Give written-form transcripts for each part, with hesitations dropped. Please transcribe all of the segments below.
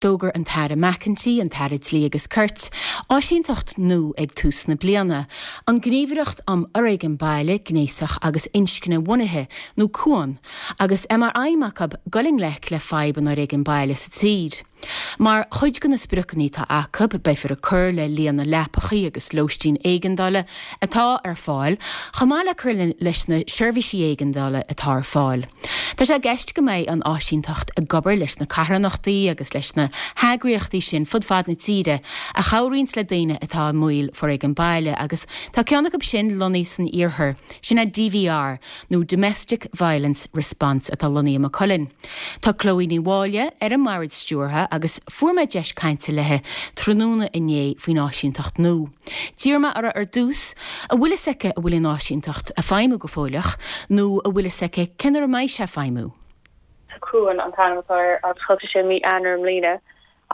D'fhógair an tAire McEntee, an tAire Dlí agus Cirt, áisínteacht nua ag tús na bliana, an Gníomhaireacht um Fhoréigean Baile, Gnéasach agus Inscne-Bhunaithe, nó Cuan, agus é mar aidhm acu dul i ngleic le fadhb an fhoréigin baile sa tír. Mar chuid de na spriocanna atá acu, beifear ag cur le líon na leapachaí agus lóistín éigeandála atá ar fáil, chomh maith le cur leis na seirbhísí éigeandála atá ar fáil. Tá sé i gceist go mbeidh an áisínteacht ag obair leis na carthanachtaí agus leis na heagraíochtaí sin fud fad na tíre a chabhraíonns le daoine atá i mbaol foréigean baile agus tá ceann acu sin lonnaithe san iarthar, sin é DVR nó Domestic Violence Response atá lonnaithe i Maigh Cuilinn. Tá Chloe Ní Mháille ar an mbord stiúrtha agus fuair mé deis cainte léi tráthnóna inné faoin áisínteacht nua. D'iarr mé uirthi ar dtús an bhfuil fhios aici an bhfuil an áisínteacht ag feidhmiú go fóilleach nó an bhfuil fhios aici cén uair a mbeidh sé ag feidhmiú. Cuan an t-ainm atá air agus thosaigh sé mí Eanáir i mbliana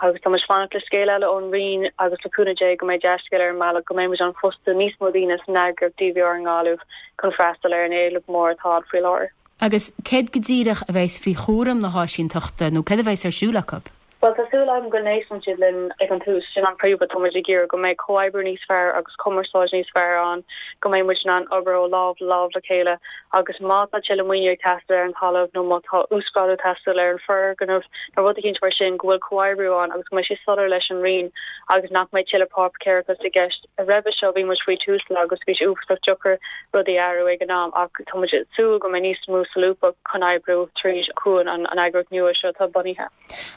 agus tá muid ag fanacht le scéal eile ón Roinn agus le cúnamh Dé go mbeidh dea-scéal ar an mbealach go mbeidh muid in ann fostú níos mó daoine san eagraíocht DVR i nGaillimh chun freastal ar an éileamh mór atá ann faoi láthair. Agus céard go díreach a bheas faoi chúram na háisínteachta nó céard a bheas ar siúl acu? Bhuel, tá súil agam go n-éisteann siad linn ag an tús. Sin an príomhrud. Tá muid ag iarraidh go mbeidh comhoibriú níos fearr agus cumarsáid níos fearr ann, go mbeidh muid in ann obair ó lámh le lámh le chéile agus má tá tuilleadh maoiniú ag teastáil ar an talamh nó má tá uasghrádú ag teastáil ar an foirgneamh nó rud eicínt mar sin, go bhfuil comhoibriú ann agus go mbeidh sé soiléir leis an Roinn agus nach mbeidh tuilleadh páipéarachas i gceist. Roimhe seo bhí muid faoi Tusla agus bhí sé uafásach deacair rudaí a athrú ag an am ach tá muid ag súil go mbeidh níos mó solúbthacht chun oibriú tríd Cuan, an eagraíocht nua seo atá bunaithe.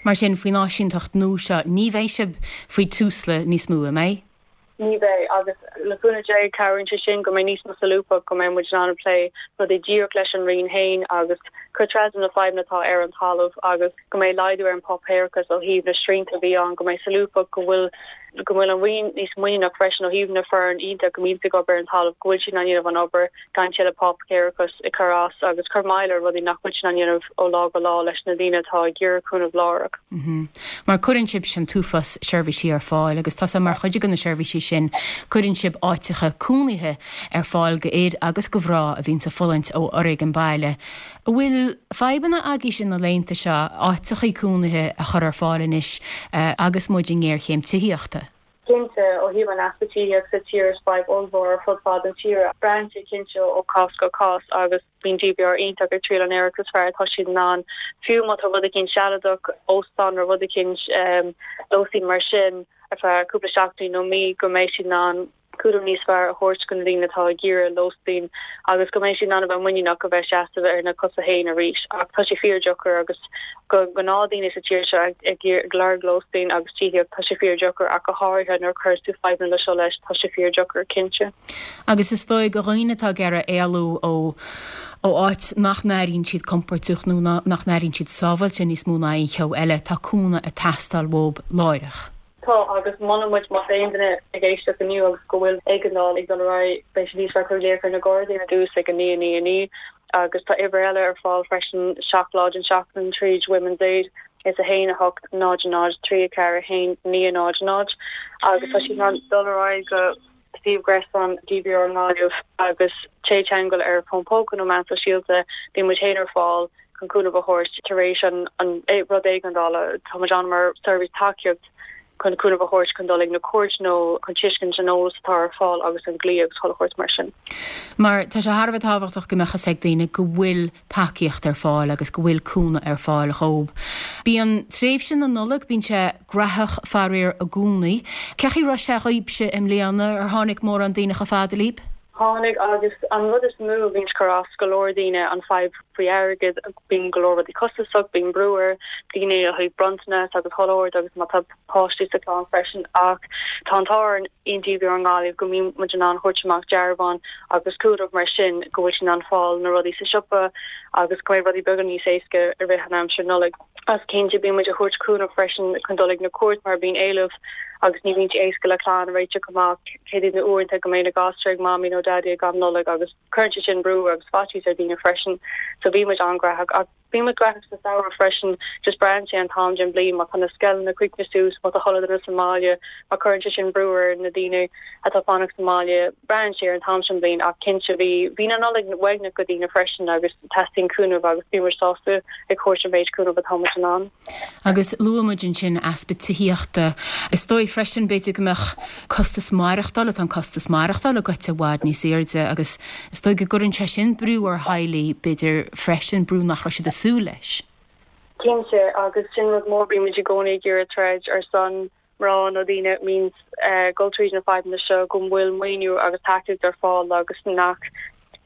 Mar sin, faoin áisínteacht nua seo, ní bheidh sibh faoi Tusla níos mó, an mbeidh? Ní bheidh, agus le cúnamh Dé cabhraíonn sé sin go mbeidh níos mó solúbthacht, go mbeidh muid in ann plé rudaí díreach leis an Roinn féin agus cur trasna na fadhbanna atá ar an talamh agus go mbeidh laghdú ar an bpáipéarachas ó thaobh na srianta a bhí ann, go mbeidh solúbthacht, go bhfuil go bhfuil an Roinn níos muiníneach freisin ó thaobh na foireann iontach a mbíonns ag obair ar an talamh, go bhfuil siad in ann dhéanamh an obair gan tuilleadh páipéarachas ag cur as agus cur moill ar rudaí nach bhfuil siad in ann dhéanamh ó lá go lá leis na daoine atá ag iarraidh cúnamh láithreach. Mar cuireann sibhse an t-uafás seirbhísí ar fáil agus tá sé mar chuid de na seirbhísí sin, cuireann sibh áiteacha cónaithe ar fáil go fhir agus go mhná a bhíonns ag fulaingt ó fhoréigean baile. An bhfuil fadhbanna agaibhse na laethanta seo áiteachaí cónaithe a chur ar fáil anois agus muid i ngéarchéim tithíochta? Cinnte, ó thaobh an easpa tithíochta sa tír is fadhb ollmhór ar fud fad an tíre. Braitheann sé cinnte ó chás go cás agus bíonn DVR iontach ag triail an réiteach is fearr atá siad in ann. Fiú má tá rud eicínt sealadach, óstán nó rud eicínt, lóistín mar sin ar feadh cúpla seachtainí nó mí go mbeidh siad in ann cúram níos fearr a thabhairt do na daoine atá ag iarraidh lóistín agus go mbeidh siad in ann a bheith muiníneach a bheith seasamh ar na cosa féin arís. Ach tá sé fíordheacair agus go gnáthdhaoine sa tír seo ag lorg lóistín agus tithíocht, tá sé fíordheacair ach go háirithe nuair a chuireas tú fadhbanna le seo leis, tá sé fíordheacair, cinnte. Agus is dóigh do dhaoine atá ag iarraidh éalú ó ó áit nach n-airíonn siad compordach nó nach n-airíonn siad sábháilte níos mó ná aon cheo eile, tá cúnamh ag teastáil uathu láithreach. Tá, agus molann muid má tá aon duine ag éisteacht inniu agus go bhfuil éigeandáil ag dul ar aghaidh, beidh sé níos fearr cur glaoch ar na Gardaí ar dtús ag 9 9 9 agus tá uimhir eile ar fáil freisin 7 lá den seachtain tríd Women's Aid is 1 8 0 0 3 4 1 9 0 0 agus tá siad in ann dul ar aghaidh go suíomh gréasáin DVR i nGaillimh agus téigh i dteagmháil ar fón póca nó meán sóisialta, bíonn muid féin ar fáil chun cúnamh a thabhairt tar éis an rud éigeandála. Tá muid ann mar seirbhís tacaíocht chun cúnamh a thabhairt chun dul ag na cúirt nó chun tuiscint an eolas atá ar fáil agus an dlí agus chuile shórt mar sin. Mar tá sé thar a bheith tábhachtach go mbeadh fhios ag daoine go bhfuil tacaíocht ar fáil agus go bhfuil cúnamh ar fáil dhóib. Bíonn tréimhse na Nollag, bíonn sé graitheach faraor i gcónaí. Cén chaoi a raibh sé dhaoibhse i mbliana? Ar tháinig mórán daoine chomh fada libh? Tháinig agus an rud is mó a bhíonns ag cur as go leor daoine an fadhb faoi airgead, bíonn go leor rudaí costasach, bíonn brú ar daoine ó thaobh bronntanas agus chuile shórt agus má tá páistí sa chlann freisin ach tá an t-ádh orainn in DVR i nGaillimh go mbíonn muid in ann thabhairt amach dearbháin agus cúnamh mar sin go bhfuil siad in ann fáil na rudaí sa siopa agus go mbeidh rudaí beagán níos éasca i rith an aimsir Nollaig. Agus cinnte bíonn muid ag thabhairt cúnamh freisin chun dul ag na cúirt mar bíonn éileamh agus ní bhíonn sé éasca le clann a réiteach amach céard iad na uaireanta go mbeidh na gasúir ag mamaí nó daidí ag am Nollaig agus cuireann sé sin brú agus faitíos ar daoine freisin so bíonn muid an-ghraitheach ach. Bíonn muid gnóthach sa samhradh freisin, just braitheann sé an t-am den bhliain, má tá na scoileanna críochnaithe suas, má tá chuile dhuine sa mbaile, má cuireann sé sin brú ar na daoine atá fanacht sa mbaile, braitheann sé ar an t-am sin bliain ach cinnte bhí, bhí na Nollaig uaigneach go daoine freisin agus teastaíonn cúnamh agus bíonn muid sásta ag thabhairt an mhéid cúnamh atá muid in ann. Agus luaigh muid ansin easpa tithíochta. Is dóigh freisin, b'fhéidir go mbeadh costas maireachtála, tá an costas maireachtála goite i bhfad níos airde agus is dóigh go gcuireann sé sin brú ar theaghlaigh, b'fhéidir freisin, brú nach raibh siad ag súil leis. Cinnte, agus sin rud mór, bímid i gcónaí ag iarraidh troid ar son mná nó daoine a mbíonns ag dul tríd na fadhbanna seo go bhfuil maoiniú agus tacaíocht ar fáil agus nach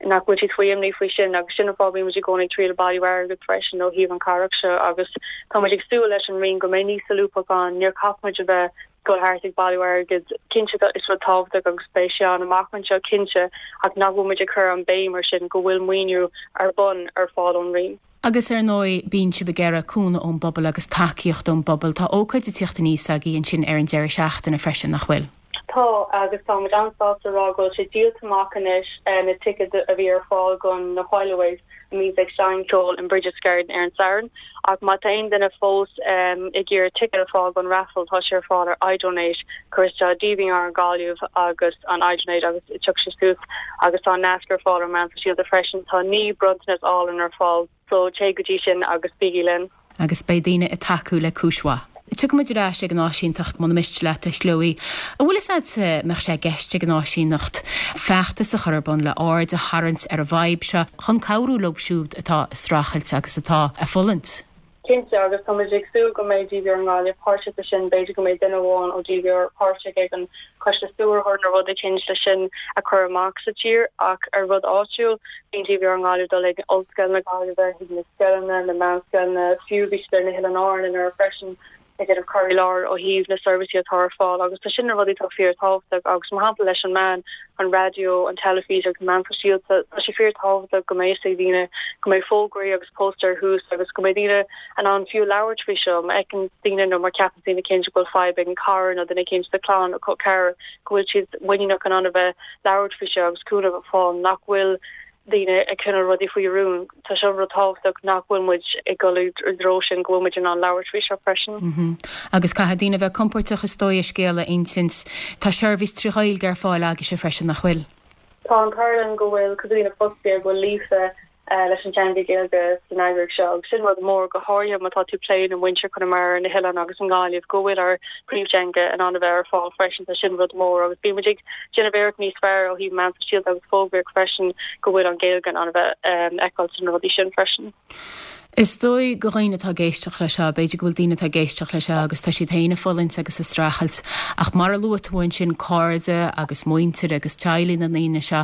nach bhfuil siad faoi imní faoi sin agus sin an fáth bíonn muid i gcónaí ag triail bailiú airgead freisin ó thaobh an chabhrach seo agus tá muid ag súil leis an Roinn go mbeidh níos solúbthacht ann níor chaith muid a bheith dul thart ag bailiú airgead cinnte is rud tábhachtach agus beidh sé ann amach anseo cinnte ach nach bhfuil muid ag cur an béim ar sin go bhfuil maoiniú ar bun ar fáil ón Roinn. Agus ar ndóigh, bíonn sibh ag iarraidh cúnamh ón bpobal agus tacaíocht ón bpobal. Tá ócáid ag tíocht aníos agaibh ansin ar an deireadh seachtaine freisin, nach bhfuil? Tá, agus tá muid an-sásta a rá go bhfuil sé díolta amach anois, na ticéid a bhí ar fáil don na Whileaways a mbíonns ag seinm ceoil in Brigid's Garden ar an Satharn. Ach má tá aon duine fós ag iarraidh ticéad a fáil don raffle, tá sé ar fáil ar iDonate, cuir isteach DVR Gaillimh agus an iDonate agus tiocfaidh sé suas agus tá an nasc ar fáil ar na meáin sóisialta freisin. Tá 9 bronntanas álainn ar fáil so téigh go dtí sin agus bígí linn. Agus beidh daoine ag tacú le cúis mhaith. Tiocfaidh muid ar ais ag an áisínteacht muna miste leat, a Chloe. An bhfuil fhios agat an mbeadh sé i gceist ag an áisíneacht feachtas a chur ar bun le aird a tharraingt ar an bhfadhb seo chun cabhrú leo siúd atá ag streachailt agus atá ag fulaingt? Cinnte, agus tá muid ag súil go mbeidh DVR i nGaillimh páirteach sa sin, b'fhéidir go mbeidh duine amháin ó DVR páirteach ag an choiste stiúrthóir nó rud eicínt le sin a chur amach sa tír ach ar rud áitiúil, bíonn DVR i nGaillimh dul ag Ollscoil na Gaillimhe, chuig na scoileanna, na meánscoileanna, fiú bhí siad ar na hOileáin Árann anuraidh freisin ag déanamh cur i láthair ó thaobh na seirbhísí atá ar fáil agus tá sin na rudaí atá fíor tábhachtach agus mar shampla leis an meán, an raidió, an teilifís agus na meáin sóisialta, tá sé fíor tábhachtach go mbeidh fhios ag daoine go mbeidh fógraí agus póstaeir thuas agus go mbeidh daoine in ann fiú labhairt faoi seo má fheiceann daoine nó má cheapann daoine eicínt go bhfuil fadhb ag an cara nó duine eicínt sa chlann nó col ceathrar go bhfuil siad muiníneach in ann a bheith labhairt faoi seo agus cúnamh a fháil nach bhfuil daoine ag coinneáil rudaí faoi rún. Tá seo rud tábhachtach nach bhfuil muid ag dul i dtreo sin, go bhfuil muid in ann labhairt faoi seo freisin. Agus caithfidh daoine a bheith compóirteach is dóigh a scéal a insint. Tá seirbhís tri Ghaeilge ar fáil agaibhse freisin, nach bhfuil? Tá an t-ádh linn go bhfuil cúpla daoine fostaithe go bhfuil líofa leis an teanga Gaeilge san eagraíocht seo agus sin rud mór, go háirithe má tá tú ag plé le muintir Chonamara, na hoileáin agus i nGaillimh, go bhfuil ár bpríomhteanga in ann a bheith ar fáil freisin, tá sin rud mór agus bíonn muid ag déanamh iarracht níos fearr ó thaobh meán sóisialta agus fógraíocht freisin go bhfuil an Ghaeilge in ann a bheith feiceáil sna rudaí sin freisin. Is dóigh go dhaoine atá ag éisteacht leis seo, b'fhéidir go bhfuil daoine atá ag éisteacht leis seo agus tá siad féin ag fulaingt agus ag streachailt ach mar a luaigh tú ansin cairde agus muintir agus teaghlaigh na ndaoine seo,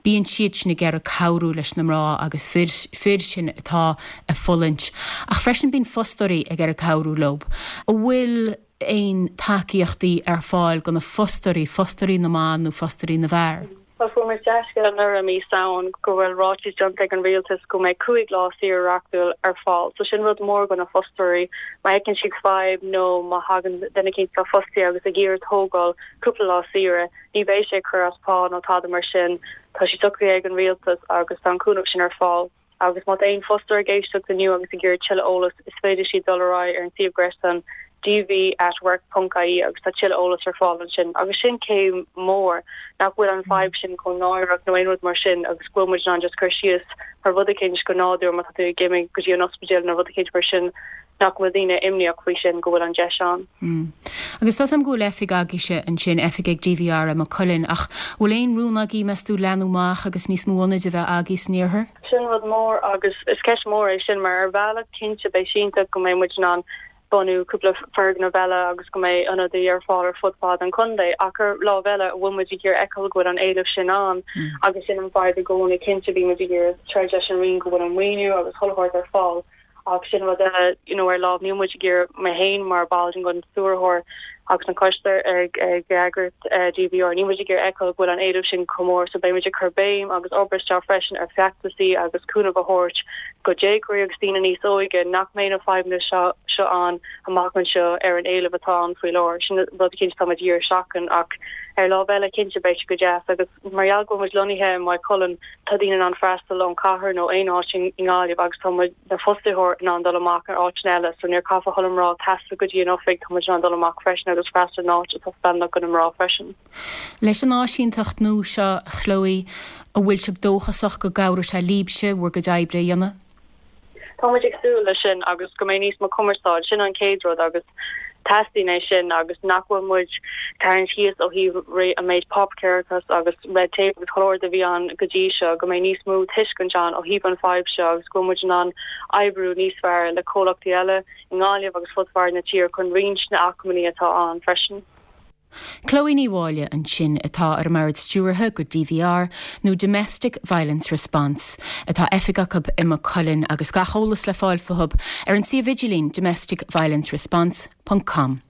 bíonn siad sin ag iarraidh cabhrú leis na mná agus fir, fir sin atá ag fulaingt. Ach freisin bíonn fostóirí ag iarraidh cabhrú leo. An bhfuil aon tacaíochtaí ar fáil do na fostóirí, fostóirí na mban nó fostóirí na bhfear? Bhuel, fuair muid dea-scéala anuraidh i mí Samhain go bhfuil ráiteas déanta ag an rialtas go mbeidh 5 lá saoire reachtúil ar fáil. So sin rud mór do na fostóirí. Má fheiceann siad fadhb nó má thagann duine eicínt atá fostaithe agus ag iarraidh tógáil cúpla lá saoire, ní bheidh sé ag cur as pá nó tada mar sin. Tá sé socraithe ag an rialtas agus tá an cúnamh sin ar fáil. Agus má tá aon fostóir ag éisteacht inniu agus ag iarraidh tuilleadh eolas, is féidir siad dul ar aghaidh ar an suíomh gréasáin dv@work.ie agus tá tuilleadh eolas ar fáil ansin. Agus sin céim mór, nach bhfuil an fadhb sin chomh náireach nó aon rud mar sin agus go bhfuil muid in ann just cur síos ar rud eicínt go nádúr má tá tú ag imigh go dtí an ospidéal nó rud eicínt mar sin nach bhfuil daoine imníoch faoi sin, go bhfuil an deis ann. Agus tá 's a'm go bhfuil oifig agaibhse ansin, oifig ag DVR i Maigh Cuilinn, ach bhfuil aon rún agaibh, meas tú, leathnú amach agus níos mó ionaid a bheith agaibh san iarthar? Sin rud mór agus is ceist mhór é sin mar ar bhealach cinnte beidh sé iontach go mbeidh muid in ann bunú cúpla foirgneamh eile agus go mbeidh ionadaí ar fáil ar fud fad an chontae ach ar lámh eile an bhfuil muid ag iarraidh feiceáil go bhfuil an éileamh sin ann agus sin an fadhb i gcónaí cinnte bíonn muid ag iarraidh troid leis an Roinn go bhfuil an maoiniú agus chuile shórt ar fáil Ach sin rud eile, you know, ar lámh, níl muid ag iarraidh, mé féin mar ball den stiúrthóir. Agus an coiste ag eagraíocht DVR, níl muid ag iarraidh fheiceáil go bhfuil an éileamh sin chomh mór so beidh muid ag cur béim agus obair isteach freisin ar feachtasaí agus cúnamh a thabhairt go déagóirí agus daoine níos óige nach mbeidh na fadhbanna seo seo ann amach anseo ar an éileamh atá ann faoi láthair. Sin rud cinnte atá muid ag iarraidh seachain ach ar lámh eile cinnte beidh sé go deas agus mar gheall go bhfuil muid lonnaithe i Maigh Cuilinn tá daoine in ann freastal ón chathair nó aon áit i nGaillimh agus tá muid na fostaithe in ann dul amach ar áiteanna eile so níor caithfidh chuile mná taisteal go dtí an oifig, tá muid in ann dul amach freisin agus freastal in áit atá feiliúnach do na mná freisin. Leis an áisínteacht nua seo, a Chloe, an bhfuil sibh dóchasach go gcabhróidh sé libhse bhur gcuid oibre a dhéanamh? Tá muid ag súil leis sin agus go mbeidh níos mó cumarsáid, sin an chéad rud agus teastaíonn é sin agus nach bhfuil muid tarraingt síos ó thaobh an méid páipéarachas agus red tape agus chuile shórt a bhí ann go dtí seo, go mbeidh níos mó tuiscint ann ó thaobh an fadhb seo agus go bhfuil muid in ann oibriú níos fearr le comhlachtaí eile i nGaillimh agus fud fad na tíre chun roinnt na acmhainní atá ann freisin. Chloe Ní Mháille ansin, atá ar an mBord Stiúrtha go DVR, nó Domestic Violence Response, atá oifig acu i Maigh Cuilinn agus gach eolas le fáil fúthu ar an suíomh idirlín domesticviolenceresponse ponc com.